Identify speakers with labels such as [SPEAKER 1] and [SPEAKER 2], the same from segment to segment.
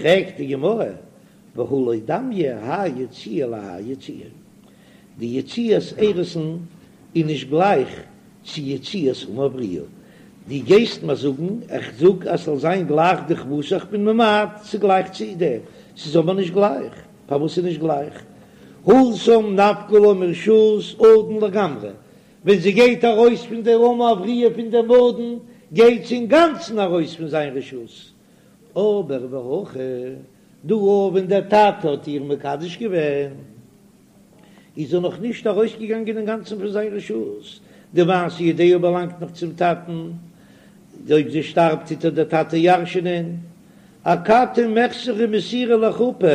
[SPEAKER 1] פרעגט די גמרא, והא לא דמיא האי יציאה להאי יציאה, די יציאת אירוסין איז נישט גלייך צו יציאת אמה העבריה, דו גייסט מיר זאגן, איך זאג אז ס'זאל זיין גלייך דכוותה, איך בין ממעט ס'איז גלייך צו דעם, ס'איז אבער נישט גלייך, פארוואס איז נישט גלייך? התם נפקא לה מרשות אדון לגמרי, ווען זי גייט ארויס פון די אמה העבריה פון דעם אדון, גייט זי אינגאנצן ארויס פון זיין רשות, אבער והכא דא ווען דער טאטע האט איר מקדש געווען, איז זי נאך נישט ארויסגעגאנגען אינגאנצן פון זיין רשות, די מעשה ידיה באלאנגט נאך צום טאטן, אויב זי שטארבט טוט איר דער טאטע ירש'נען, אכתי מיחסרא מסירה לחופה,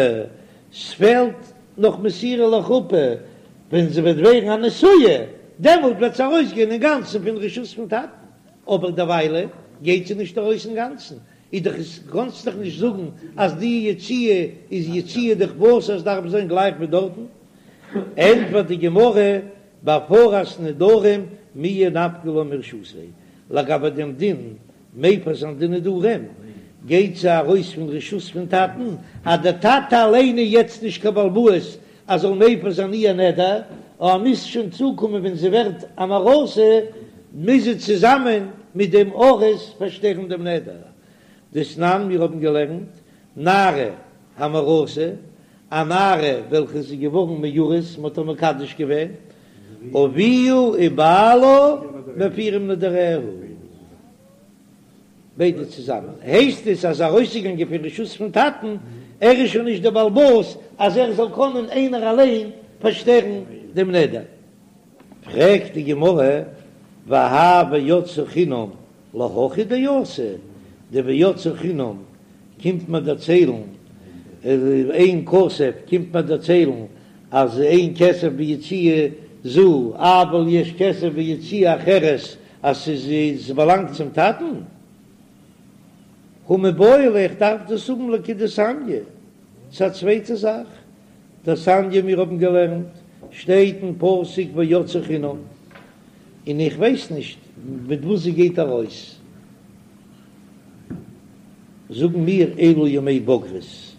[SPEAKER 1] ס'פעלט נאך מסירה לחופה, ווען זי וועט ווערן א נשואה, דעמאלט וועט זי ארויסגיין אינגאנצן פון רשות פון טאטן, אבער דערוויילע גייט זי נישט ארויס אינגאנצן, איז דאך עס קאנסט דאך נישט זאגן אז די יציאה איז יציאה דכוותה עס דארף זיין גלייך ווי דארטן, ענטפערט די גמרא בהפרת נדרים מיהא נפקא לה מרשותיה, לגבי דעם דין מפר זיין די נדרים גייט זי ארויס פון רשות פון טאטן, אז דער טאטע אליין איז יעצט נישט קיין בעל הבית אז זאל מפר זיין איר נדר, אבער מוז שוין צוקומען ווען זי ווערט אן ארוסה, מוז זי צוזאמען מיט דעם ארוס פארשטערן דעם נדר. דתנן, מיר האבן געלערנט, נערה המאורסה, א נערה וועלכע איז געווארן מאורס, מען האט איר מקדש געווען, אביה ובעלה מפירים נדריה. ביידע צוזאמען הייסט עס אז ארויסגעגאנגען פון רשות פון טאטן, ער איז שוין נישט דער בעל הבית אז ער זאל קענען איינער אליין פארשטערן דעם נדר. פרעגט די גמרא, והאי ויצאה חינם להכי דאתא, די ויצאה חינם קומט מיר דערציילן, אין כסף קומט מיר דערציילן אז אין כסף ביציאה זו אבל יש כסף ביציאה אחרת אז ס'איז ס'באלאנגט צום טאטן? הא מיבעי ליה איך דארף דאס האבן לכדתניא, ס'איז א צווייטע זאך, דתניא מיר האבן געלערנט שטייט אין פסוק ויצאה חינם, און איך ווייס נישט מיט וואס זי גייט ארויס, זאגן מיר אלו ימי בגרות,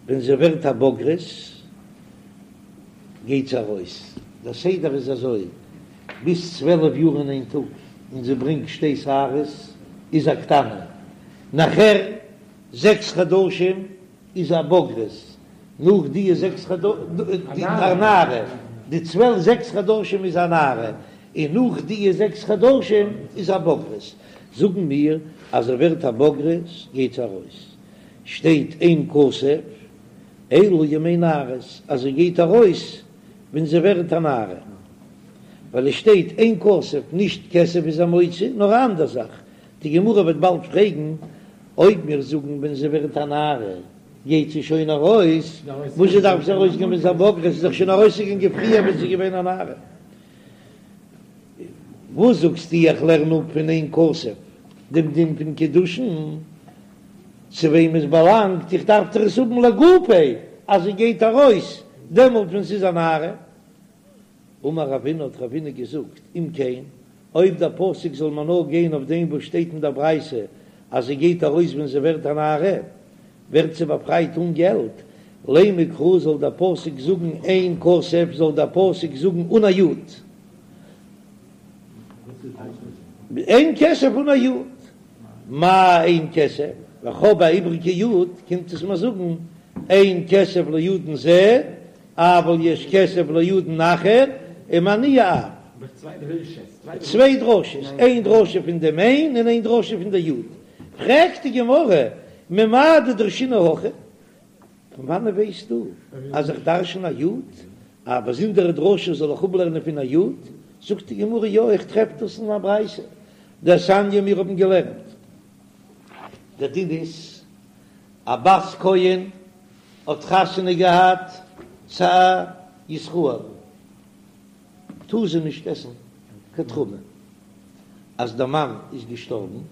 [SPEAKER 1] ווען זי ווערט א בוגרת גייט זי ארויס, דער סדר איז אזוי, ביז 12 יאר און איין טאג און זי ברענגט שתי שערות איז א קטנה, נאכער זעקס חדשים איז א בוגרת, נאך די זעקס חדשים א נערה, די צוועלף זעקס חדשים איז א נערה, און נאך די זעקס חדשים איז א בוגרת, זאגן מיר אז זי ווערט א בוגרת גייט זי ארויס, שטייט אין כסף אלא ימי נערות אז זי גייט ארויס ווען זי ווערט א נערה, ווייל עס שטייט אין כסף נישט כסף איז א מוציא נאר א אנדער זאך, די גמרא וועט באלד פרעגן אויב מיר זאגן ווען זי ווערט א נערה גייט זי שוין ארויס, וואס זשע דארף זי ארויסגיין ווען זי איז א בוגרת, זי איז דאך שוין ארויסגעגאנגען פריער ווען זי איז געווען א נערה. וואס זאגסטו איך לערן אפ פון אין כסף דעם דין פון קידושין? צו וועם עס באלאנגט, איך דארף דאך עס האבן לגופיה אז זי גייט ארויס דעמאלט ווען ס'איז א נערה. אמר רבינא האט רבינא געזאגט, אם כן, אויב דער פסוק זאל מיר נאר גיין אויף דעם וואס שטייט אין דער ברייתא אז זי גייט ארויס ווען זי ווערט א נערה, ווערט זי באפרייט אן געלט, לימא קרא זאל דער פסוק זאגן אין כסף זאל דער פסוק זאגן אן א יוד. אין כסף אן א יוד. מאי אין כסף, ווען כ'האב א איבריגע יוד, קומט עס מיר זאגן אין כסף לאדון זה, אבל יש כסף לאדון אחר, ומהנייה אב. צוויי דרשות, איין דרשה פון דעם אין און איין דרשה פון די יוד. פרעגט די גמרא, ממאי דדרשינן הכי? פון וואנען ווייסטו אז איך דרשן א יוד? א באזונדערע דרשה זאל איך אפלערנען פון א יוד? זאגט די גמרא, יא, איך טרעף דאס אין א ברייתא, דתניא מיר האבן געלערנט, דער דין איז, א בת כהן האט חתונה געהאט צו א ישראל, טאר זי נישט עסן קיין תרומה, אז דער מאן איז געשטארבן,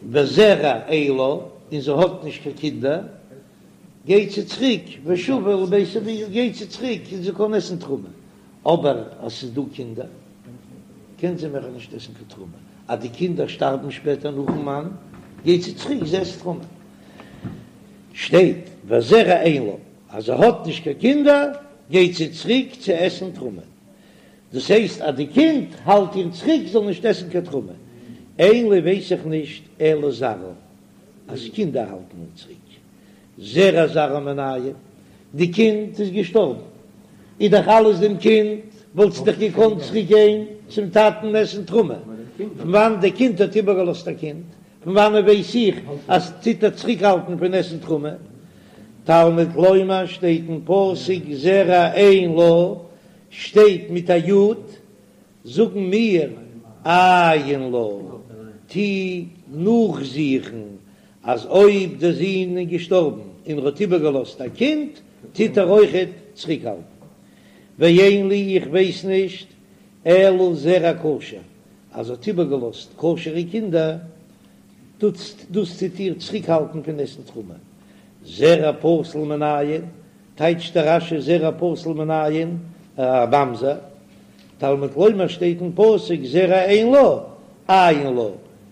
[SPEAKER 1] וזרע אין לה, און זי האט נישט קיין קינדער, גייט זי צוריק, ושבה אל בית אביה, גייט זי צוריק און זי קען עסן תרומה, אבער אז ס'איז דא קינדער, קען זי מער נישט עסן קיין תרומה, אז די קינדער שטארבן שפעטער נאכן מאן, גייט זי צוריק, זי עסט תרומה. שטייט וזרע אין לה, אז זי האט נישט קיין קינדער גייט זי צוריק צו עסן תרומה, דאס הייסט אז די קינד האלט איר צוריק זאל נישט עסן קיין תרומה, אין לי ווייס איך נישט אלא זרעה אז קינדער האלטן איר צוריק, זרע זרעה מנין, די קינד איז געשטארבן, איז דאך אלעס דעם קינד, וואלט זי דאך געקאנט צוריק גיין צום טאטן עסן תרומה, פון וואנעט די קינד האט איבערגעלאזט א קינד, פון וואנעט ווייס איך אז טוט איר צוריקהאלטן פון עסן תרומה? תלמוד לומר שטייט אין פסוק זרע אין לה, שטייט מיט א יוד, זאגן מיר עיין לה, טו נאכזוכן אז אויב דער זון איז געשטארבן און ער האט איבערגעלאזט א קינד, טוט ער אויכעט צוריקהאלטן. ואין לי איך ווייס נישט אלא זרע כשר, אז זי האט איבערגעלאזט כשר'ע קינדער, דאס טוט איר צוריקהאלטן פון עסן תרומה. זרע פסול מנין, טייטשט דער רש"י זרע פסול מנין, א ממזר, תלמוד לומר שטייט אין פסוק זרע אין לה, עיין לה,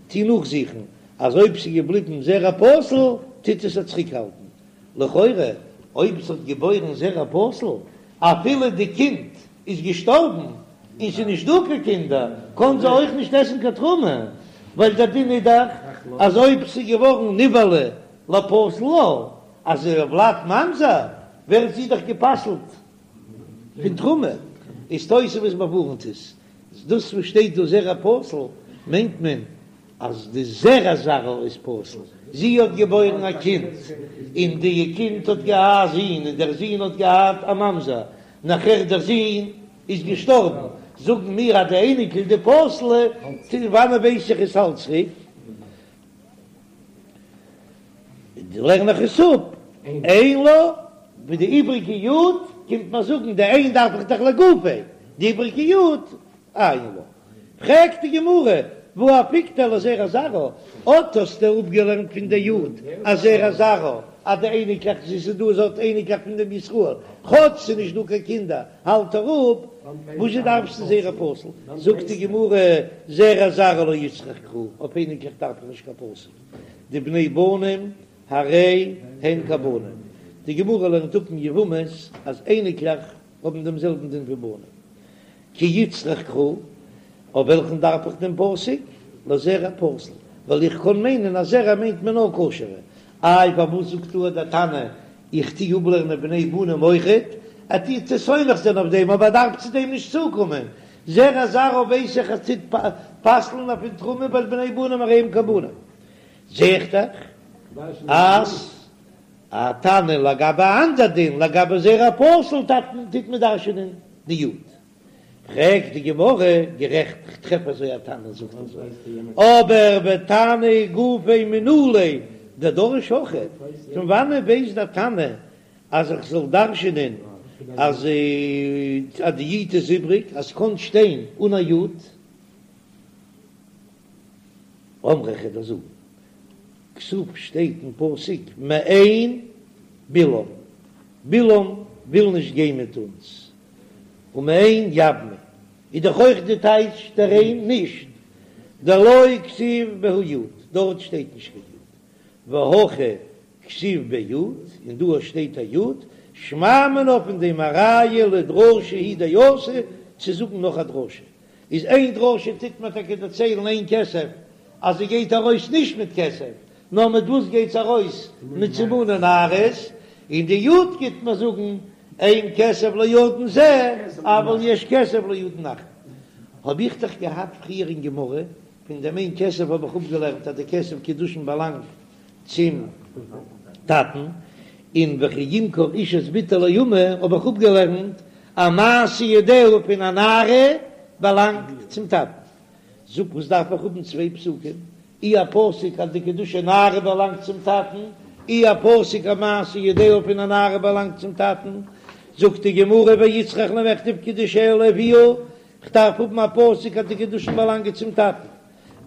[SPEAKER 1] טו נאכזוכן אז אויב ס'איז געבליבן זרע פסול טוט עס איר צוריקהאלטן. לכאורה אויב ס'האט געבוירן זרע פסול אפילו די קינד איז געשטארבן און ס'איז נישט דא קיין קינדער קען זי אויך נישט עסן קיין תרומה, ווייל דער דין איז דאך אז אויב ס'איז געווארן נבעלה לפסול לה, אז הולד ממזר ווערט זי דאך גע'פסל'ט פון תרומה, איז תוספות באווארנט עס, דאס וואס שטייט דא זרע פסול מיינט מען אז די זרע זרעה איז פסול, זי האט געבוירן א קינד און די קינד האט געהאט א זון און דער זון האט געהאט א ממזר, נאכער דער זון איז געשטארבן, זאגן מיר אז די אייניקל די פסול'ע, פון וואנען ווייס איך עס האלט צוריק? לערן איך עס אפ, אין לה, ווי די איבריגע יוד קומט מיר זאגן די אין דארף איך דאך לגופיה, די איבריגע יוד עיין לה. פרעגט די גמרא, והא אפיקתיה לזרע זרעה, אט האסטו אפגעלערנט פון די יוד אז זרע זרעה אז די אייניקלעך זי ס'איז דא זי האט אייניקלעך פון דעם ישראל, כאטש ס'איז נישט דא קיין קינדער האלט ער אפ, וואזשע דארפסטו זרע פסול? זאגט די גמרא, זרע זרעה לא איצטריך קרא, אויף אייניקלעך דארף איך נישט קיין פסוק, דבני בנים הרי הן כבנים, די גמרא לערנט אפ אין יבמות אז אייניקלעך האבן דעם זעלבן דין ווי בנים, כי איצטריך קרא, אויף וועלכן דארף איך דעם פסוק? לזרע פסול, ווייל איך קען מיינען אז זרע מיינט מען נאר כשר'ע, איי פארוואס זאגט דא דער תנא איך טוה אפלערנען בני בנים אויכעט, ער טוט זיך סומך זיין אויף דעם אבער ער דארף צו דעם נישט צוקומען, זרע זרעה ווייס איך אז טוט פסל'ן אויף פון תרומה ווייל בני בנים הרי הם כבנים, זע איך דאך אז א תנא לגבי א אנדער דין לגבי זרע פסול טוט מען דרש'ענען די יוד. פרעגט די גמרא, גערעכט, כ'טרעף אזוי א תנא זאגט אזוי, אבער ותנא גופיה מנא ליה דדריש הכי, פון וואנען ווייסט דער תנא אז איך זאל דרש'ענען אז די יוד איז איבריג, אז ס'קען שטיין אן א יוד? אמרי כ'וועל דיר זאגן, כתיב שטייט אין פסוק מאן בלעם, בלעם וויל נישט גיין מיט אונז, ומאן יבמי איז דאך אויך די טייטש דער אין נישט, דלא כתיב בהו יוד, דארט שטייט נישט קיין יוד, והכא כתיב ביה יוד, און דא שטייט א יוד, שמע מינה פון דעם א ראיה לדרשה הוא דאתא צו זאגן נאך א דרשה, איז איין דרשה טוט מען טאקע דערציילן אין כסף אז זי גייט ארויס נישט מיט כסף, נאר מיט וואס גייט זי ארויס? מיט סימני נערות, און די יוד גייט מען זאגן אין כסף לאדון זה אבל יש כסף לאדון אחר. האב איך דאך געהאט פריער אין גמרא, פון דעם אין כסף האב איך אפגעלערנט אז די כסף קידושין באלאנגט צום טאטן, און וכי ימכור איש את בתו לאמה האב איך אפגעלערנט אז מעשה ידיה פון א נערה באלאנגט צום טאטן. זאג וואס דארף איך האבן צוויי פסוקים? אי א פסוק אז די קידושי נערה באלאנגט צום טאטן, אי א פסוק אז מעשה ידיה פון א נערה באלאנגט צום טאטן, זאגט די גמרא ואיצטריך למכתב קידושיה לאביה, כ'דארף האבן א פסוק אז די קידושין באלאנגען צום טאטן,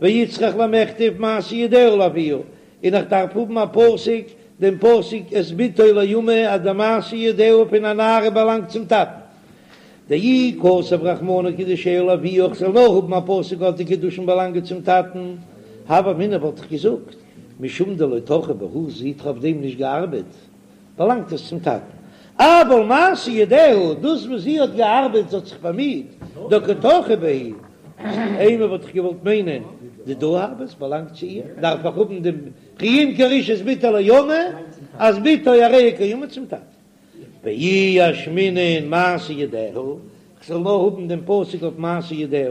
[SPEAKER 1] ואיצטריך למכתב מעשה ידיה לאביה, און איך דארף האבן א פסוק, דעם פסוק את בתו לאמה אז די מעשה ידיה פון א נערה באלאנגט צום טאטן. דאי כתב רחמנא קידושיה לאביה איך זאל נאר האבן א פסוק אז די קידושין באלאנגען צום טאטן, הוה אמינא וואלט איך געזאגט. משום דלא טרחא בהו, זי האט אויף דעם נישט געארבעט, באלאנגט עס צום טאטן. אבל מעשה ידיה, דאס וואס זי האט געארבעט, זי האט זיך באמיט, דקא טרחא בהו, אימא וואלט איך געוואלט מיינען, דידה הוו, עס באלאנגט צו איר, דארף איך האבן דעם וכי ימכור איש את בתו לאמה, אז בתו הרי היא קאמר צום טאטן. ואי אשמעינן מעשה ידיה, כ'זאל נאר האבן דעם פסוק אויף מעשה ידיה,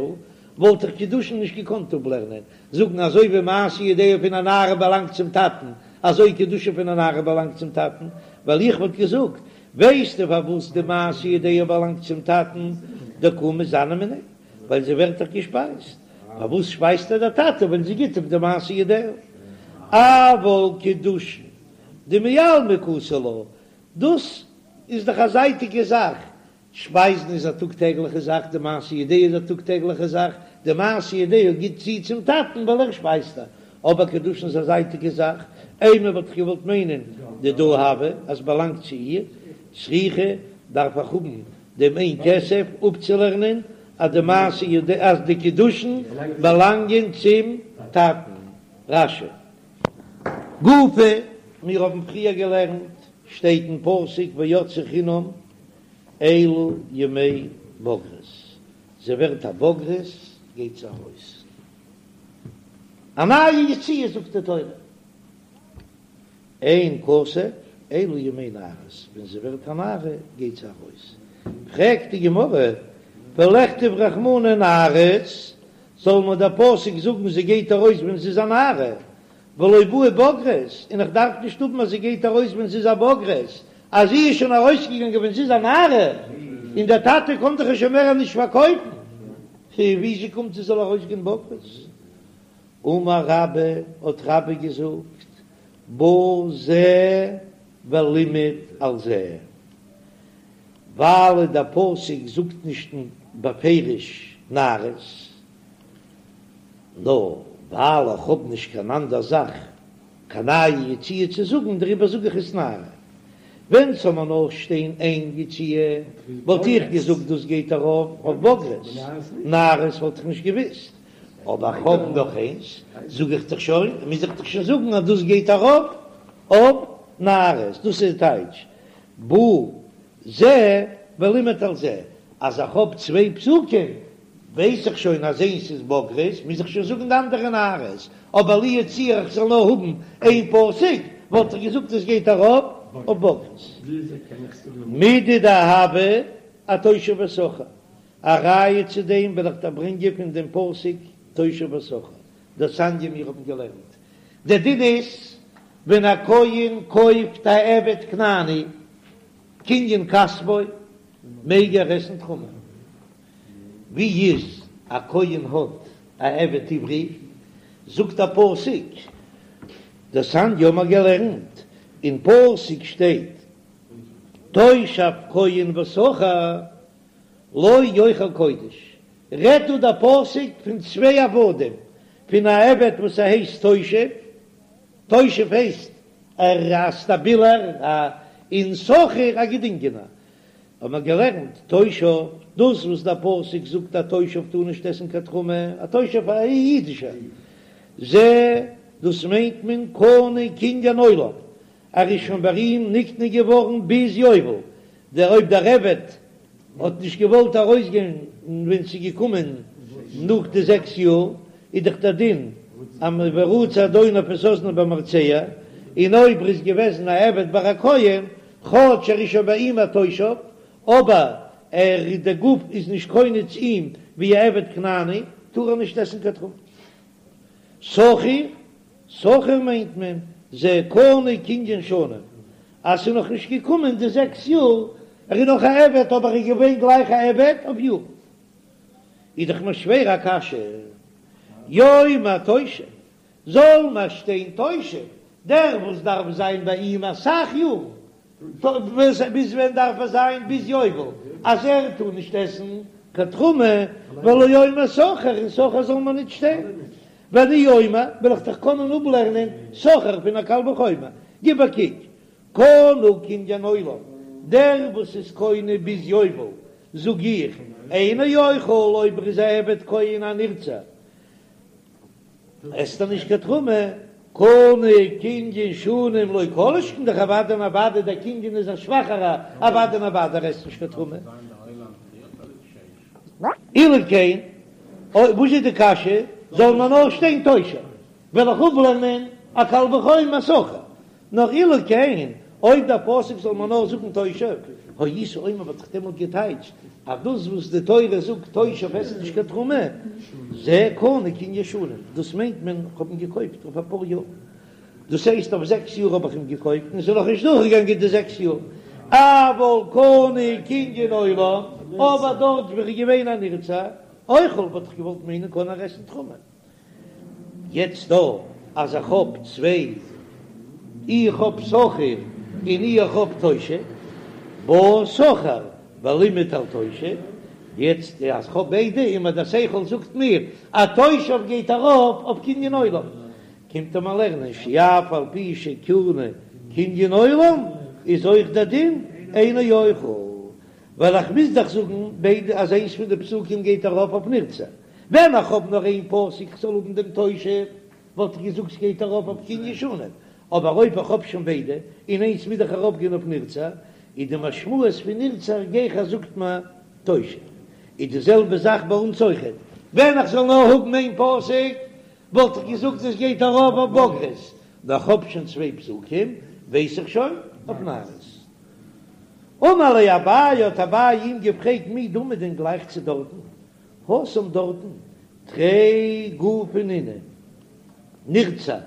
[SPEAKER 1] וואלט איך קידושין נישט געקאנט אפלערנען, זאגן אזוי ווי מעשה ידיה פון א נערה באלאנגט צום טאטן, אזוי קידושין פון א נערה באלאנגט צום טאטן, ווייל איך וואלט געזאגט, ווייסטו פארוואס די מעשה ידיה באלאנגט צום טאטן, דקא מיתזנא מיניה, ווייל זי ווערט דאך געשפייזט, פארוואס שפייזט איר דער טאטע ווען זי גיט אפ די מעשה ידיה? אבל קידושין דמעלמא קאתי לה, דאס איז דאך א זייטיגע זאך, שפייזן איז א טאג טעגליכע זאך, די מעשה ידיה איז א טאג טעגליכע זאך, די מעשה ידיה גיט זי צום טאטן ווייל ער שפייזט איר, אבער קידושין איז א זייטיגע זאך, אימא וואלט איך געוואלט מיינען דידה הוו אז באלאנגט צו איר, צריכא דארף איך האבן דעם אין כסף אפצולערנען אז די מעשה ידיה אז די קידושין באלאנגען צום טאטן. רש"י. גופא, מיר האבן פריער געלערנט, שטייט אין פסוק ויצאה חינם אלו ימי בגרות, זי ווערט א בוגרת גייט זי ארויס, א נייע יציאה זאגט די תורה, אין כסף אלו ימי נערות, ווען זי ווערט א נערה גייט זי ארויס, פרעגט די גמרא, ולכתוב רחמנא נערות, זאל מיר דער פסוק זאגן זי גייט ארויס ווען זי איז א נערה, ולא בעי בוגרת, און איך דארף נישט האבן אז זי גייט ארויס ווען זי איז א בוגרת, אז זי איז שוין ארויסגעגאנגען ווען זי איז א נערה, און דער טאטע קען דאך איר שוין מער נישט פארקויפן, וויאזוי קומט זי זאל ארויסגיין בוגרת? אמר רבה, האט רבה געזאגט, בא זה ולימד על זה, ווייל דער פסוק זאגט נישט בפירוש נערות, נאר ווייל איך האב נישט קיין אנדער זאך קיין נייע יציאה צו זאגן דעריבער זאג איך עס נערה. ווען ס'זאל מיר נאר שטיין איין יציאה וואלט איך געזאגט דאס גייט ארויף אויף בוגרת, נערות וואלט איך נישט געוויסט, אבער איך האב נאך איינס זאג איך דאך שוין, מוז איך דאך שוין זאגן אז דאס גייט ארויף אויף נערות, דאס איז די טייטש בא זה ולימד על זה, אז איך האב צוויי פסוקים ווייס איך שוין אז איינס איז בוגרת, מוז איך שוין זאגן די אנדערע נערות, אבער לו יצוייר איך זאל נאר האבן איין פסוק, וואלט איך געזאגט עס גייט ארויף אויף בוגרת. מידי דהוה אתושב ושכיר, א ראיה צו דעם וועל איך דיר ברענגען פון דעם פסוק תושב ושכיר, דתניא מיר האבן געלערנט, דער דין איז ווען א כהן קויפט א עבד כנעני קנין כספו מעג ער עסן תרומה. ווי איז א כהן האט א עבד עברי, זאגט א פסוק, דתניא האבן מיר געלערנט, אין פסוק שטייט תושב כהן ושכיר לא יאכל קודש, רעדט דא דער פסוק פון צוויי עבדים, פון א עבד וואס ער הייסט תושב, תושב הייסט ער א סטאבילער, און שכיר א געדינגענער, האט מען געלערנט תושב, דאס וואס דער פסוק זאגט א תושב טאר נישט עסן קיין תרומה, א תושב א אידישער, זה דאס מיינט מען קנוי קנין עולם, ער איז שוין ביי אים נקנה געווארן ביז יובל, דער אויב דער עבד האט נישט געוואלט ארויסגיין ווען ס'איז געקומען נאך די זעקס יאר, איז דאך דער דין אז ורצע אדוניו את אזנו במרצע, און אויב ער איז געוועזן א עבד ביי א כהן, כאטש ער איז שוין ביי אים א תושב, אבער ער דער גוף איז נישט קונה צו אים ווי א עבד כנעני, טאר ער נישט עסן קיין תרומה. שכיר, שכיר מיינט מען זה קנוי קנין שנים, אז ס'איז נאך נישט געקומען די זעקס יאר, ער איז נאך א עבד אבער ער איז געווען גלייך א עבד אויף יארן. איז דאך מיר שווער א קשיא, יאמר תושב, זאל מיר שטיין תושב, דער וואס דארף זיין ביי אים אסאך יארן, ביז ווען דארף ער זיין? ביז יובל, אז ער טאר נישט עסן קיין תרומה, ולא יאמר שכיר, און שכיר זאל מיר נישט שטיין, ואני אומר, וועל איך דאך קענען אפלערנען שכיר פון א קל וחומר, גיב א קוק, קנוי קנין עולם, דער וואס איז קונה ביז יובל, זאג איך, אינו אוכל אויב ער איז א עבד כהן א נרצע, עסט ער נישט קיין תרומה. קנה קנין שנים לא כל שכן דאך אוודאי און אוודאי דער קנין איז א שוואכערע אוודאי און אוודאי ער עסט נישט קיין תרומה. אילו כן, וואס איז די קשיא? זאל מען נאר שטיין תושב, וועל איך אפלערנען א קל וחומר שכיר. נאר אילו כן, אויב דער פסוק זאל מען נאר זאגן תושב, הייתי אומר וואלט איך דעמאלט געטייטשט אז דאס וואס די תורה זאגט תושב עסט נישט קיין תרומה, זה קנה קנין שנים, דאס מיינט מען כ'האב אים געקויפט אויף אפאר יאר, דאס הייסט אויף זעקס יאר האב איך אים געקויפט און עס איז נאכנישט דורכגעגאנגען די זעקס יאר, אבל קנה קנין עולם, אבער דארט ווי ער איז געווען א נרצע, אוכל וואלט איך געוואלט מיינען קען ער עסן תרומה. יעצט דא אז איך האב צוויי, איך האב שכיר און איך האב תושב, בא שכיר ולימד על תושב, יעצט אז כ'האב ביידע און מיר דער שכל זאגט מיר אז תושב גייט ארויף אויף קנין עולם, קומט ער מיר לערנען שאף על פי שקנה קנין עולם איז אויך דער דין אינו אוכל, ווייל איך מוז דאך זאגן ביידע אז איינס פון די פסוקים גייט ארויף אויף נרצע. ווען איך האב נאר איין פסוק כ'זאל האבן דעם תושב, וואלט איך געזאגט ס'גייט ארויף אויף קנין שנים, אבער אויב איך האב שוין ביידע, און איינס מוז דאך ארויפגיין אויף נרצע, איז די משמעות פון נרצע גיכער זאגט מען תושב. איז די זעלבע זאך ביי אונז אויכעט, ווען איך זאל נאר האבן איין פסוק, וואלט איך געזאגט עס גייט ארויף אויף בגרות, נאר איך האב שוין צוויי פסוקים, ווייס איך שוין אויף נערות. אמר ליה אביי, האט אביי אים געפרעגט מי דמי דען גלייך צו דארטן? התם דארטן תרי גופי נינהו נרצע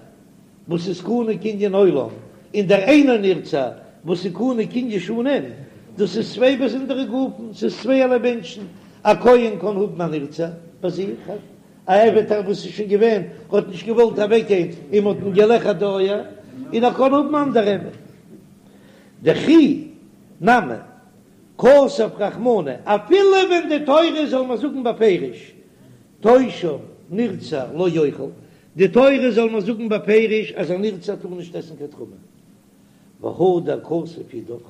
[SPEAKER 1] וואס איז קנה קנין עולם און דער אינו נרצע וואס איז קנה קנין שנים, דאס איז צוויי באזונדערע גופים, ס'איז צווייערליי מענטשן, א כהן קען האבן א נרצע ביי זיך, א עבד וואס איז שוין געווען האט נישט געוואלט אוועקגיין און מ'האט אים געלעכערט די אויער, און ער קען האבן אנדערע עבד. דכי נמי כתב רחמנא, אפילו ווען די תורה זאל מיר זאגן בפירוש תושב נרצע לא יאכל, די תורה זאל מיר זאגן בפירוש אז א נרצע טאר נישט עסן קיין תרומה, והדר כתב אידך,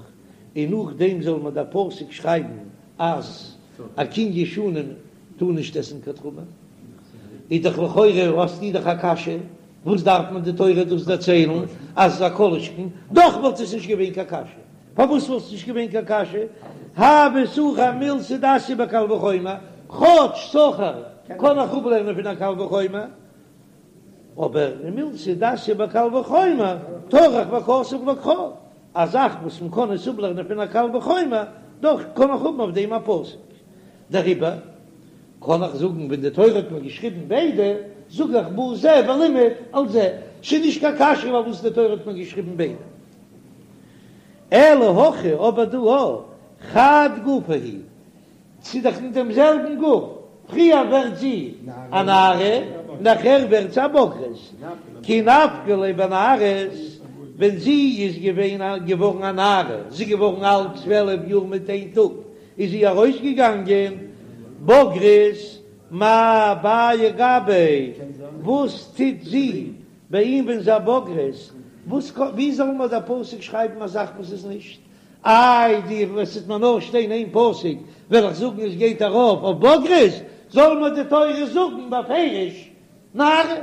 [SPEAKER 1] און נאכדעם זאל מיר דער פסוק שרייבן אז א קנין שנים טאר נישט עסן קיין תרומה, איז דאך לכאורה האסטו דאך א קשיא, וואס דארף מען די תורה דאס דערציילן אז א כל שכן, דאך וואלט עס נישט געווען קיין קשיא. פארוואס וואלט עס נישט געווען קיין קשיא? הוי שכיר מילתא דאתיא בקל וחומר, כאטש שכיר קען איך אפלערנען פון א קל וחומר, אבער מילתא דאתיא בקל וחומר טרח וכתב לך קרא, א זאך וואס מען קען עס אפלערנען פון א קל וחומר, דאך קען איך האבן אויף דעם א פסוק. דעריבער קען איך זאגן ווען די תורה האט מיר געשריבן ביידע, זאג איך בא זה ולימד על זה, ס'איז נישט קיין קשיא פארוואס די תורה האט מיר געשריבן ביידע. אלא הכא אבער דא חד גופא הוא, ס'איז דאך אין דעם זעלבן גוף, פריער ווערט זי א נערה, נאכער ווערט זי א בוגרת, כי נפקא ליה בנערות, ווען זי איז געווען א געווארן א נערה, זי איז געווארן אלט 12 יאר מיט איין טאג, איז זי ארויסגעגאנגען בוגרת, מאי בעיא גביה, וואס טוט זי ביי אים ווען זי א בוגרת, וואס קאן, ווי זאל מיר דער פסוק שרייבן א זאך וואס איז נישט? איי די וואס וועט מיר נאר שטיין איין פסוק וועל איך זאגן עס גייט ארויף אויף בוגרת, זאל מיר די תורה זאגן בפירוש נערה,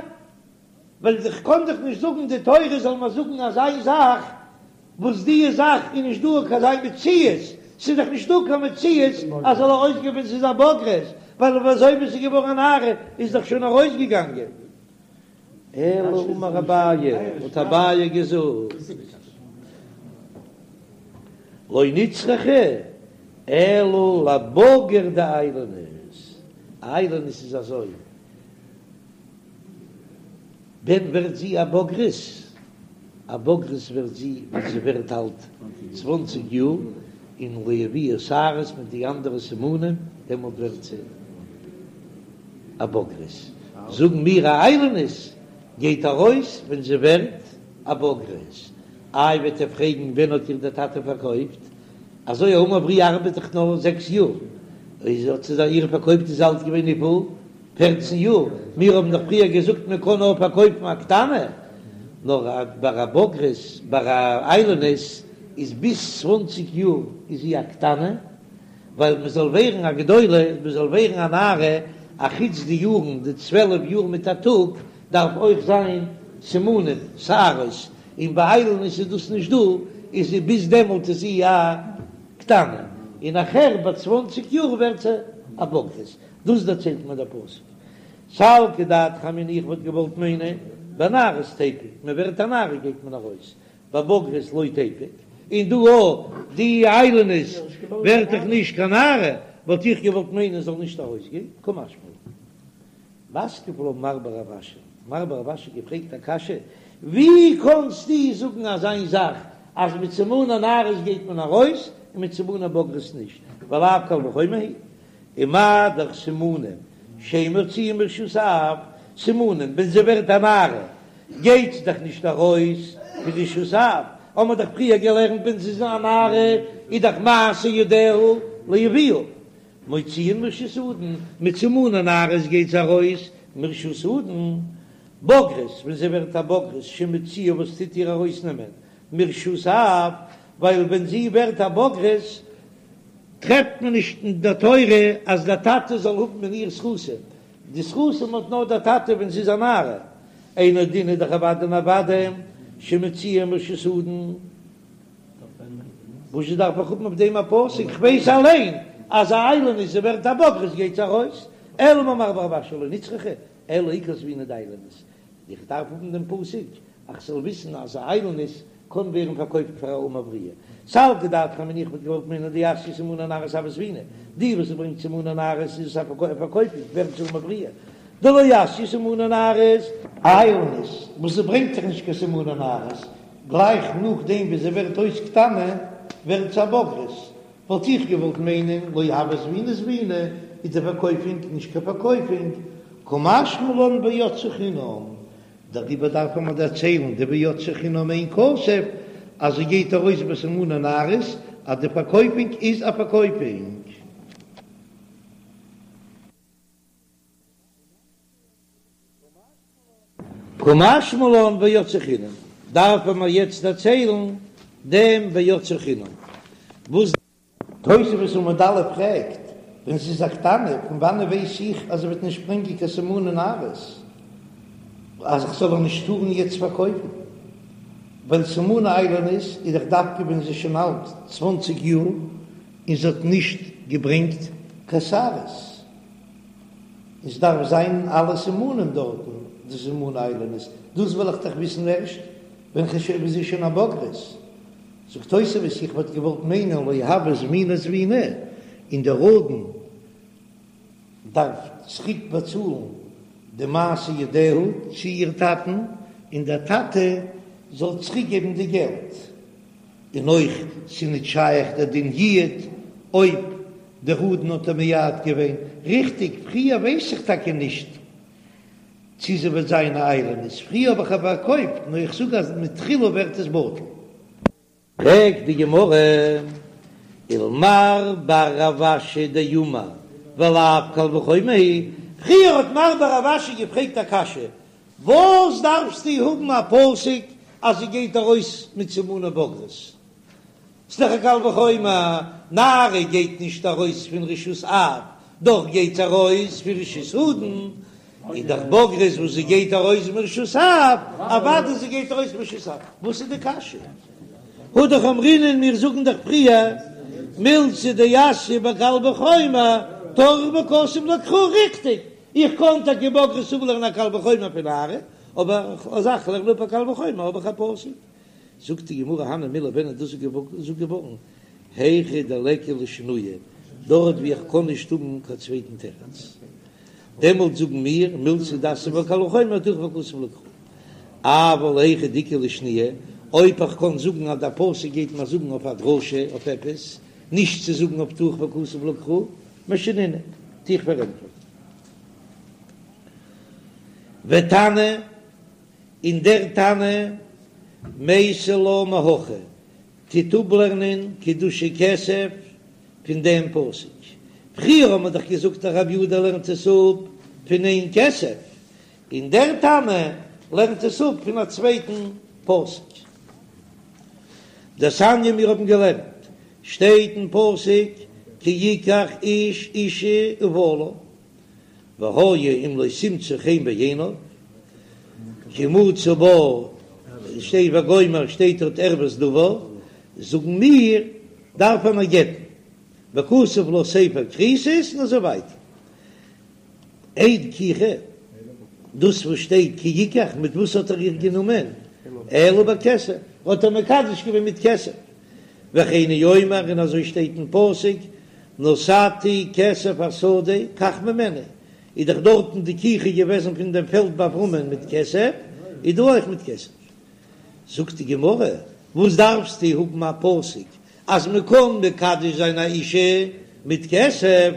[SPEAKER 1] ווייל איך קען דאך נישט זאגן די תורה זאל מיר זאגן אזא זאך וואס די זאך איז נישט דא קיין אזא מציאות, ס'איז דאך נישט דא קיין מציאות אז זאל ארויסגיין ווען ס'איז א בוגרת, ווייל אזוי ווי ס'איז געווארן א נערה איז דאך שוין ארויסגעגאנגען. אלא אמר אביי, האט אביי געזאגט, לא נצרכה אלא לבגר דאיילונית, איילונית איז אזוי, ווען ווערט זי א בוגרת? א בוגרת ווערט זי ווען זי ווערט אלט צוואנציג יאר, און לא הביאה שערות מיט די אנדערע סימנים, דעמאלט ווערט זי א בוגרת. זאגן מיר א איילונית גייט ארויס ווען זי ווערט א בוגרת. איי וועט איר פרעגן ווען האט איר דער טאטע פארקויפט? אזוי א אמה עבריה ארבעט דאך נאר זעקס יאר, איז האט זי איר פארקויפט איז אלט געווען וויפיל? פערצן יאר, מיר האבן דאך פריער געזאגט מען קען נאר פארקויפן א קטנה, נאר ביי א בוגרת, ביי א איילונית איז ביז צוואנציג יאר איז זי א קטנה, ווייל מען זאל ווערן א גדולה, מען זאל ווערן א נערה, א חוץ די יארן, די צוועלף יאר מיט א טאג, דארף אויך זיין. סימנים, שערות, און ביי איילונית איז דאס נישט דא, איז זי ביז דעמאלט איז זי א קטנה, און נאכער ביי צוואנציג יאר ווערט זי א בוגרת, דאס דערציילט מיר דער פסוק. סלקא דעתך אמינא איך וואלט געוואלט מיינען בנערות תיפוק, מען ווערט א נערה גייט מען ארויס, בבוגרות לא תיפוק, און דא אויך די איילונית ווערט דאך נישט קיין נערה, וואלט איך געוואלט מיינען זאל נישט ארויסגיין, קא משמע לן. מתקיף לה מר בר רב אשי, מר בר רב אשי געפרעגט א קשיא, ווי קאנסטו זאגן אזיין זאך אז מיט סימני נערות גייט מען ארויס און מיט סימני בוגרות נישט, ולאו קל וחומר הוא, ומה דאך סימנים שאין מוציאין מרשות האב, סימנים ווען זי ווערט א נערה גייט זי דאך נישט ארויס פון רשות האב, האמער דאך פריער געלערנט ווען זי איז א נערה איז דאך מעשה ידיה לאביה, מוציאין מרשות אדון, מיט סימני נערות גייט זי ארויס מרשות אדון, בוגרת ווען זי ווערט א בוגרת שמוציאה וואס טוט איר ארויסנעמען מרשות האב, ווייל ווען זי ווערט א בוגרת טרעפט מען נישט אין דער תורה אז דער טאטע זאל האבן אין איר זכותים, די זכותים האט נאר דער טאטע ווען זי איז א נערה, אינו דין איז דאך אוודאי און אוודאי שמוציאה מרשות אדון. וואס דארף איך האבן אויף דעם א פסוק? כ'ווייס אליין אז א איילונית זי ווערט א בוגרת גייט זי ארויס, אלא אמר מר בר רב אשי לא נצרכה, אלא עיקר זבינה דאיילונית, איך דארף האבן דעם פסוק אז כ'זאל וויסן אז א איילונית קען ווערן פארקויפט פאר א אמה עבריה. סלקא דעתך אמינא איך וואלט געוואלט מיינען דאתיא סימני נערות הויא זבינה, די וואס ברענגט סימני נערות איז עס א פארקויפונג ווערט זי אמה עבריה, דלא אתיא סימני נערות. איילונית וואס זי ברענגט זיך נישט קיין סימני נערות, גלייך נאכדעם ווי זי ווערט אויס קטנה ווערט זי א בוגרת, וואלט איך געוואלט מיינען לא הויא זבינה זבינה איז די פארקויפונג נישט קיין פארקויפונג, קא משמע לן ויצאה חינם, דעריבער דארף מען דערציילן די ויצאה חינם אין כסף אז זי גייט ארויס בסימני נערות אז די פארקויפונג איז א פארקויפונג. קא משמע לן ויצאה חינם, דארפן מיר יעצט דערציילן דעם ויצאה חינם וואס. תוספות עמוד א' פרעגט, ווען זי איז א קטנה, פון וואנען ווייס איך אז זי וועט נישט ברענגען קיין סימני נערות, אז איך זאל איר נישט טארן יעצט פארקויפן? ווייל סימני איילונית איז דאך דווקא ווען זי איז שוין אלט צוואנציג יאר און זי האט נישט געברענגט קיין שערות. עס דארף זיין אלע סימנים דארטן, די סימני איילונית, דאס וועל איך דאך וויסן ערשט ווען כ'שוין זי איז שוין א בוגרת. זאגט תוספות, איך וואלט געוואלט מיינען לא הויא זבינה זבינה, און דער אדון דארף צוריק באצאלן די מעשה ידיה צו איר טאטן, און דער טאטע זאל צוריק געבן די געלט. און אויך ס'איז ניט שייך דער דין יעוד אויב דער אדון האט איר מייעד געווען ריכטיג, פריער ווייס איך טאקע נישט צי זי וועט זיין א איילונית, פריער האב איך איר פארקויפט, נאר איך זאג אז מתחילה ווערט עס בטל. פרעגט די גמרא, ולמר בר רב אשי דאמר ולאו קל וחומר הוא, פריער האט מר בר רב אשי געפרעגט א קשיא, וואס דארפסטו האבן א פסוק אז זי גייט ארויס מיט סימני בגרות? ס'דאך א קל וחומר, נערה גייט נישט ארויס פון רשות אב, דאך גייט זי ארויס פון רשות אדון, איז דאך בוגרת וואס זי גייט ארויס מרשות אב, אוודאי זי גייט ארויס מרשות אב, וואס איז די קשיא? הא דאך אמרינן מיר זאגן דאך פריער מילתא דאתיא בקל וחומר טרח וכתב לקרא ריכטיג, איך קען טאקע בוגרת אפלערנען א קל וחומר פון נערה, אבער אז איך לערן אפ א קל וחומר האב איך א פסוק. זאגט די גמרא הני מילי ווען איז דאס געזאגט געווארן? היכא דליכא לשנויי, דארט ווי איך קען נישט האבן קיין צווייטן תירוץ, דעמאלט זאגן מיר מילתא דאתיא בקל וחומר טרח וכתב לקרא. אבל היכא דאיכא לשנויי, אויב איך קען זאגן אז דער פסוק גייט מיר זאגן אויף א דרשה אויף עפעס, נישט צו זאגן אויף טרח וכתב לקרא, משנינא, טו איך פארענטפערן. ותנא, און דער תנא מייתי לה מהכא, טוט אפלערנען קידושי כסף פון דעם פסוק. פריער האט מען דאך געזאגט אז רבי יהודה לערנט עס אפ פון אין כסף, און דער תנא לערנט עס אפ פון א צווייטן פסוק. דתניא מיר האבן געלערנט, שטייט אין פסוק כי יקח איש אשה ובעלה, והיה אם לא תמצא חן בעיניו. כי מצא בה שטייט וגומר שטייט דארט ערות דבר, זאגן מיר דארף מען איר גט'ן, וכתב לה ספר כריתות און אזוי ווייטער. אין קיחה, דאס וואס שטייט כי יקח, מיט וואס האט ער איר גענומען? אלא בכסף, האט ער מקדש געווען מיט כסף. וכן הוא אומר, און אזוי שטייט אין פסוק, נתתי כסף השדה קח ממני, איז דאך דארטן די קיחה געוועזן פון דעם פעלד ביי אברהמען מיט כסף, איז דא אויך מיט כסף. זאגט די גמרא, וואס דארפסטו האבן א פסוק אז מען קען מקדש זיין א אישה מיט כסף,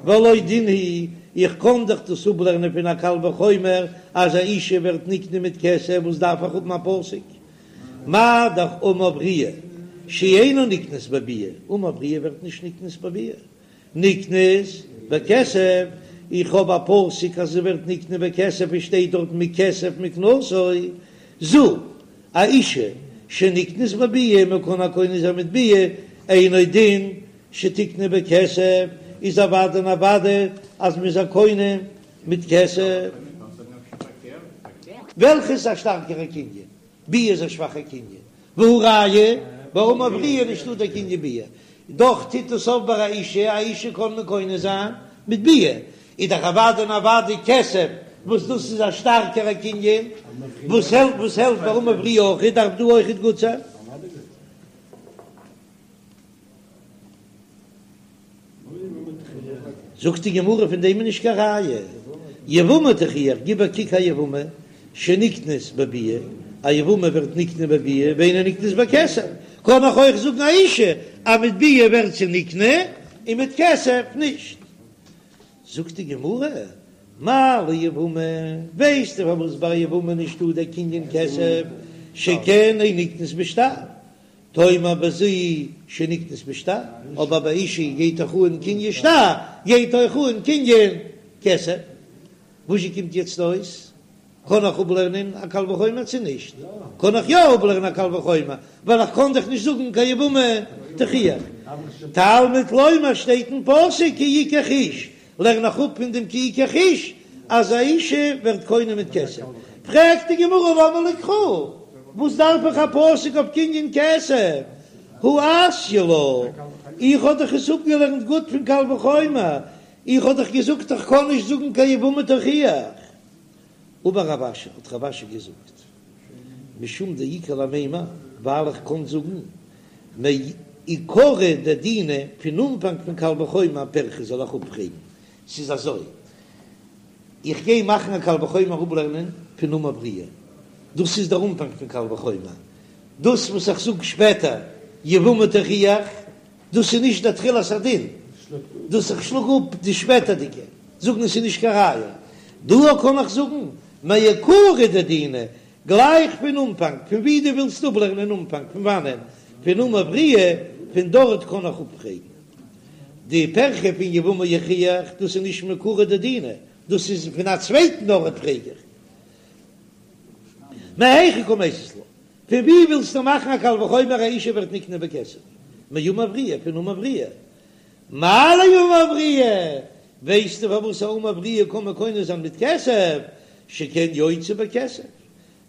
[SPEAKER 1] והלא דין הוא, איך קען דאך דאס אפלערנען פון א קל וחומר אז א אישה ווערט נקנה מיט כסף, וואס דארף איך האבן א פסוק? מה דאך אמה עבריה שאינה נקנית בביאה, אמה עבריה ווערט נישט נקנית בביאה, נקנית בכסף, איך האב א פסוק אז זי ווערט נקנה בכסף עס שטייט דארט מכסף מקנתו, זו א אישה שנקנית בביאה מען קען איר קונה זיין מיט ביאה, אינו דין שתקנה בכסף, איז אוודאי און אוודאי אז מען איז איר קונה מיט כסף. וועלכע איז א שטארקערע קנין? ביאה איז א שוואכע קנין, והא ראיה, ביי אמה עבריה איז נישטא דער קנין ביאה, דאך טוט עס אויף ביי א אישה, א אישה קען מען קונה זיין מיט ביאה, איז דאך אוודאי און אוודאי כסף, וואס דאס איז א שטארקערע קנין, וואס העלפט וואס העלפט ביי אמה עבריה אויך, דארף דא אויכעט גוט זיין. זאגט די גמרא פון דעם איז נישט קיין ראיה, יבמה תוכיח, גיב א קוק א יבמה שנקנית בביאה, א יבמה ווערט נקנה בביאה ואינה נקנית בכסף, קען איך אויך זאגן א אישה אז מיט ביאה ווערט זי נקנה און מיט כסף נישט. זאגט די גמרא, מה ליבמה, ווייסטו פארוואס ביי יבמה נישטא דער קנין כסף, שכן אין נקנית בשטר, תאמר בזו שנקנית בשטר, אבער ביי אישה גייט דאך אן קנין שטר, גייט אויך אן קנין כסף. וואזשע קומט יעצט אויס? קען איך אפלערנען א קל וחומר צו נישט? קען איך יא אפלערנען א קל וחומר, ווייל איך קען דאך נישט זאגן קיין יבמה תוכיח. תלמוד לומר שטייט אין פסוק כי יקח איש, לערן איך אפ פון דעם כי יקח איש אז א אישה ווערט קונה מיט כסף. פרעגט די גמרא למה לי קרא, וואס דארף איך א פסוק אויף קנין כסף? הא אתיא לה, איך האב דאך עס אפגעלערנט גוט פון קל וחומר, איך האב דאך געזאגט איך קען נישט זאגן קיין יבמה תוכיח. אמר רב אשי, האט רב אשי געזאגט, משום דאיכא למימר, ווייל איך קען זאגן מעיקרא דדינא, פון אנפאנג פון קל וחומר פירכא זאל איך אפפרעגן, ס'איז אזוי, איך גיי מאכן א קל וחומר אפלערנען פון אמה עבריה, דאס איז דער אנפאנג פון קל וחומר, דאס וואס איך זאג שפעטער יבמה תוכיח, דאס איז נישט דער תחילת הדין, דאס איך שלאג אפ די שפעטערדיגע, זאגן עס איז נישט קיין ראיה, דא קען איך זאגן מעיקרא דדינא, גלייך פון אנפאנג, פון ווי דו ווילסט אפלערנען אנפאנג, פון וואנען? פון אמה עבריה, פון דארט קען איך אפפרעגן די פירכא פון יבמה יוכיח, דאס איז נישט מעיקרא דדינא, דאס איז פון א צווייטן ארט פרעג איך. מהיכא קא מייתית לה? פון ווי ווילסטו מאכן א קל וחומר א אישה ווערט נקנה בכסף? מאמה עבריה, פון אמה עבריה. מה לאמה עבריה? ווייסטו פארוואס א אמה עבריה קען מען קונה זיין מיט כסף? שכן יוצאה בכסף,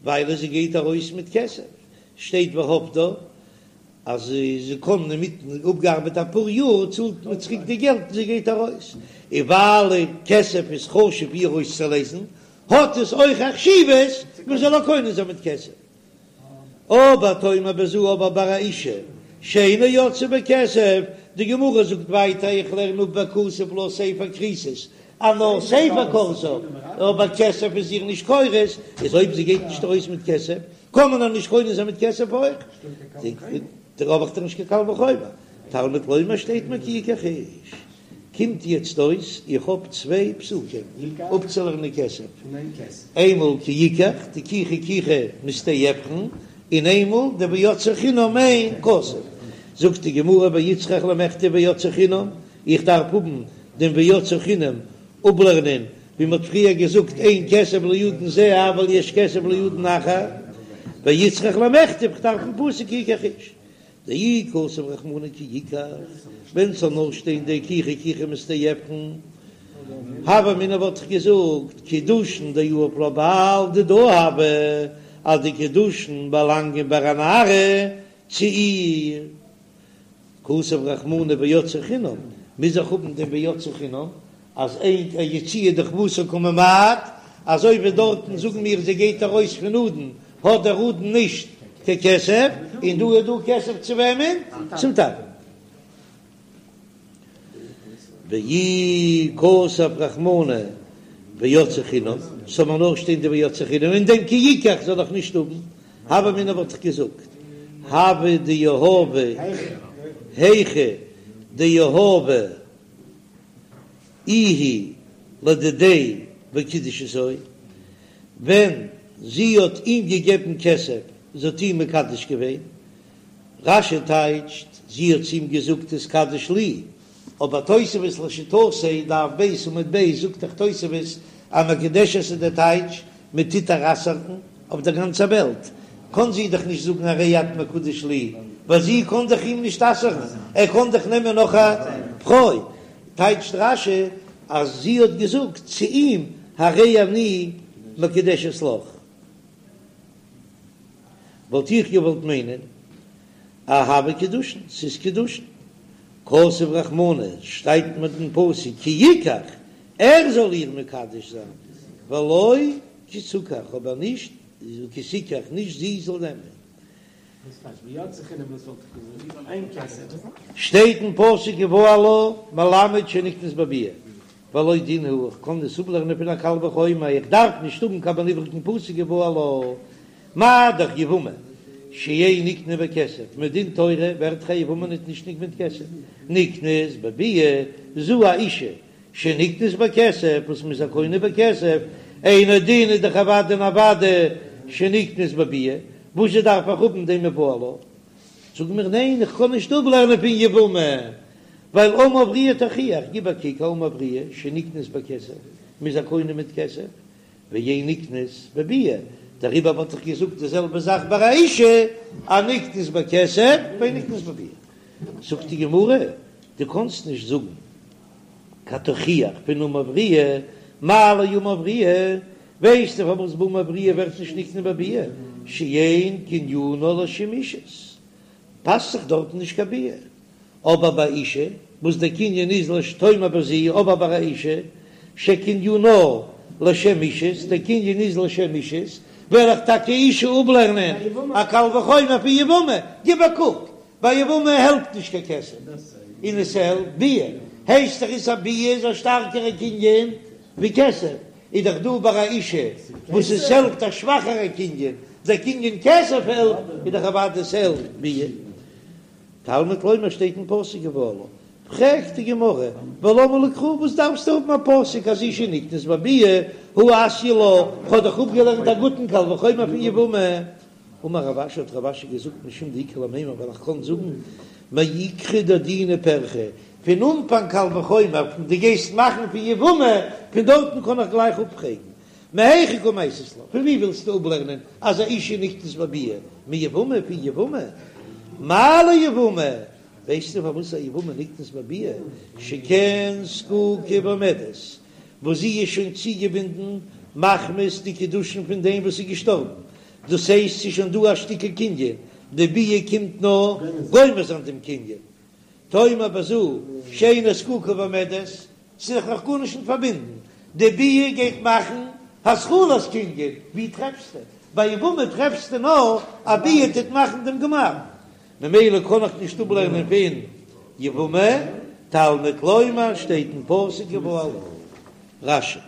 [SPEAKER 1] ווייל זי גייט ארויס מיט כסף, שטייט והפדה אז זי קען אינמיטן אפגעארבעט אפאר יאר צאלט מען צוריק די געלט און זי גייט ארויס, און ווייל כסף איז חשוב איר אויסצולייזן האט עס אויך א חשיבות מען זאל איר קונה זיין מיט כסף. אבער תאמר בזו אבער ביי א אישה שאינה יוצאה בכסף, די גמרא זאגט ווייטער איך לערן אפ וכתב לה ספר כריתות אז נאר ספר כורתה, אבער כסף איז איר נישט כורת, איז אויב זי גייט נישט ארויס מיט כסף קען מען איר נישט קונה זיין מיט כסף אויך, דערויף האב איך דאך נישט קיין קל וחומר, תלמוד לומר שטייט מיר כי יקח איש. קומט יעצט אויס איך האב צוויי פסוקים אפצולערנען כסף, איינמאל כי יקח די קיחה קיחה משדה עפרון, און איינמאל די ויצאה חינם אין כסף. זאגט די גמרא ואיצטריך למכתב ויצאה חינם, איך דארף האבן דעם ויצאה חינם אפלערנען ווי מ'האט פריער געזאגט אין כסף לאדון זה אבל יש כסף לאדון אחר, ואיצטריך למכתב איך דארף דעם פסוק כי יקח איש. דאי כתב רחמנא כי יקח, ווען ס'זאל נאר שטיין די קיחה קיחה משדה עפרון. הוה אמינא וואלט איך געזאגט קידושין דיהיב לה בעל דידה הוו, אז די קידושין באלאנגען ביי א נערה צו איר. כתב רחמנא ויצאה חינם, מוז איך האבן דעם ויצאה חינם, אז אין יציאה דחובתה קא ממעט, אזוי ווי דארטן זאגן מיר זי גייט ארויס פון אדון, האט דער אדון נישט קיין כסף, און דא איז דא כסף צו וועמען? צום טאטן. ואי כתב רחמנא ויצאה חינם, ס'זאל מיר נאר שטיין די ויצאה חינם, און דעם כי יקח זאל איך נישט האבן, הוה אמינא וואלט איך געזאגט, הוה דיהבה היכא דיהבה איהי לדידיה וקידשתו, ווען זי האט אים געגעבן כסף, זי האט אים מקדש געווען, רש"י טייטשט, זי האט צו אים געזאגט התקדש לי, אבער תוספות לשיטתו, דף ב' עמוד ב', זאגט דאך תוספות אז מקודשת איז דער טייטש מען טוט איר אסר'ן אויף דער גאנצער וועלט, קען זי דאך נישט זאגן הרי את מקודש לי, ווייל זי קען דאך אים נישט אסר'ן, ער קען דאך נעמען נאך א פרוי, טייטשט רש"י אז זי האט געזאגט צו אים הרי אני מקודשת לך. וואלט איך געוואלט מיינען אז הוו קידושין, ס'איז קידושין. כתב רחמנא, שטייט מיר אין פסוק כי יקח, ער זאל איר מקדש זיין, ולא כי תקח, אבער נישט כי תיקח, נישט זי זאל נעמען. שטייט אין פסוק ובעלה מלמד שנקנית בביאה, והלא דין הוא, איך קען עס אפלערנען פון א קל וחומר, איך דארף נישט האבן קיין איבריגן פסוק ובעלה, מה דאך יבמה שאין נקנית בכסף, מדין תורה ווערט דאך א יבמה ניט נישט נקנה מיט כסף, נקנית בביאה, זו האשה שנקנית בכסף, וואס מ'איז איר קונה בכסף, אינו דין איז דאך אוודאי און אוודאי שנקנית בביאה, וואס זשע דארף איך האבן דעם ובעלה? זאג מיר ניין איך קען נישט אפלערנען פון יבמה, ווייל אמה עבריה תוכיח, גיב א קוק א אמה עבריה שנקנית בכסף, מ'איז איר קונה מיט כסף, ואין נקנית בביאה, דעריבער וואלט איך געזאגט די זעלבע זאך ביי א אישה, אז נקנית בכסף ואין נקנית בביאה. זאגט די גמרא, דו קאנסט נישט זאגן קיין תוכיח פון אמה עבריה, מה לאמה עבריה, ווייסטו פארוואס ביי אמה עבריה ווערט נישט נקנה בביאה, שאין קנינה לשם אישות, פאסט זיך דארטן נישט קיין ביאה, אבער ביי אישה וואס דער קנין איז לש תאמר בזו, אבער ביי א אישה שקנינה לשם אישות, דער קנין איז לשם אישות, וועל איך טאקע אישה אפלערנען א קל וחומר פון יבמה, גיב א קוק, ביי יבמה העלפט נישט קיין כסף, און עס העלפט ביאה, הייסט דאך אז א ביאה איז א שטארקערע קנין ווי כסף, איז דאך דא ביי א אישה וואס עס העלפט א שוואכערע קנין, דער קנין כסף העלפט, איז דאך אוודאי עס העלפט ביאה. תלמוד לומר שטייט אין פסוק ובעלה, פרעגט די גמרא, ולמה לי קרא וואס דארפסטו האבן א פסוק אז אישה נקנית בביאה הא אתיא לה, כ'האב דאך אפגעלערנט א גוטן קל וחומר פון יבמה. אמר רב אשי האט רב אשי געזאגט משום דאיכא למימר ווייל איך קען זאגן מעיקרא דדינא פירכא, פון אנפאנג קל וחומר פון דו גייסט מאכן פון יבמה פון דארטן קען איך גלייך אפפרעגן מהיכא קא מייתית לה, פון ווי ווילסטו אפלערנען אז א אישה נקנית בביאה? מיבמה? פון יבמה? מה ליבמה? ווייסטו פארוואס א יבמה נקנית בביאה? שכן זקוקה ועומדת, וואס זי איז שוין צוגעבינדן מחמת די קידושין פון דעם וואס איז געשטארבן, דאס הייסט ס'איז שוין דא א שטיקל קנין, די ביאה קומט נאר גומר זיין דעם קנין. תאמר בזו שאינה זקוקה ועומדת, ס'איז דאך נאך גארנישט נישט פארבינדן, די ביאה גייט מאכן התחלת קנין, ווי טרעפסטו? ביי יבמה טרעפסטו נאר א ביאה טוט מאכן דעם גמר, ממילא קען איך נישט אפלערנען פון יבמה, תלמוד לומר שטייט אין פסוק ובעלה. רש"י.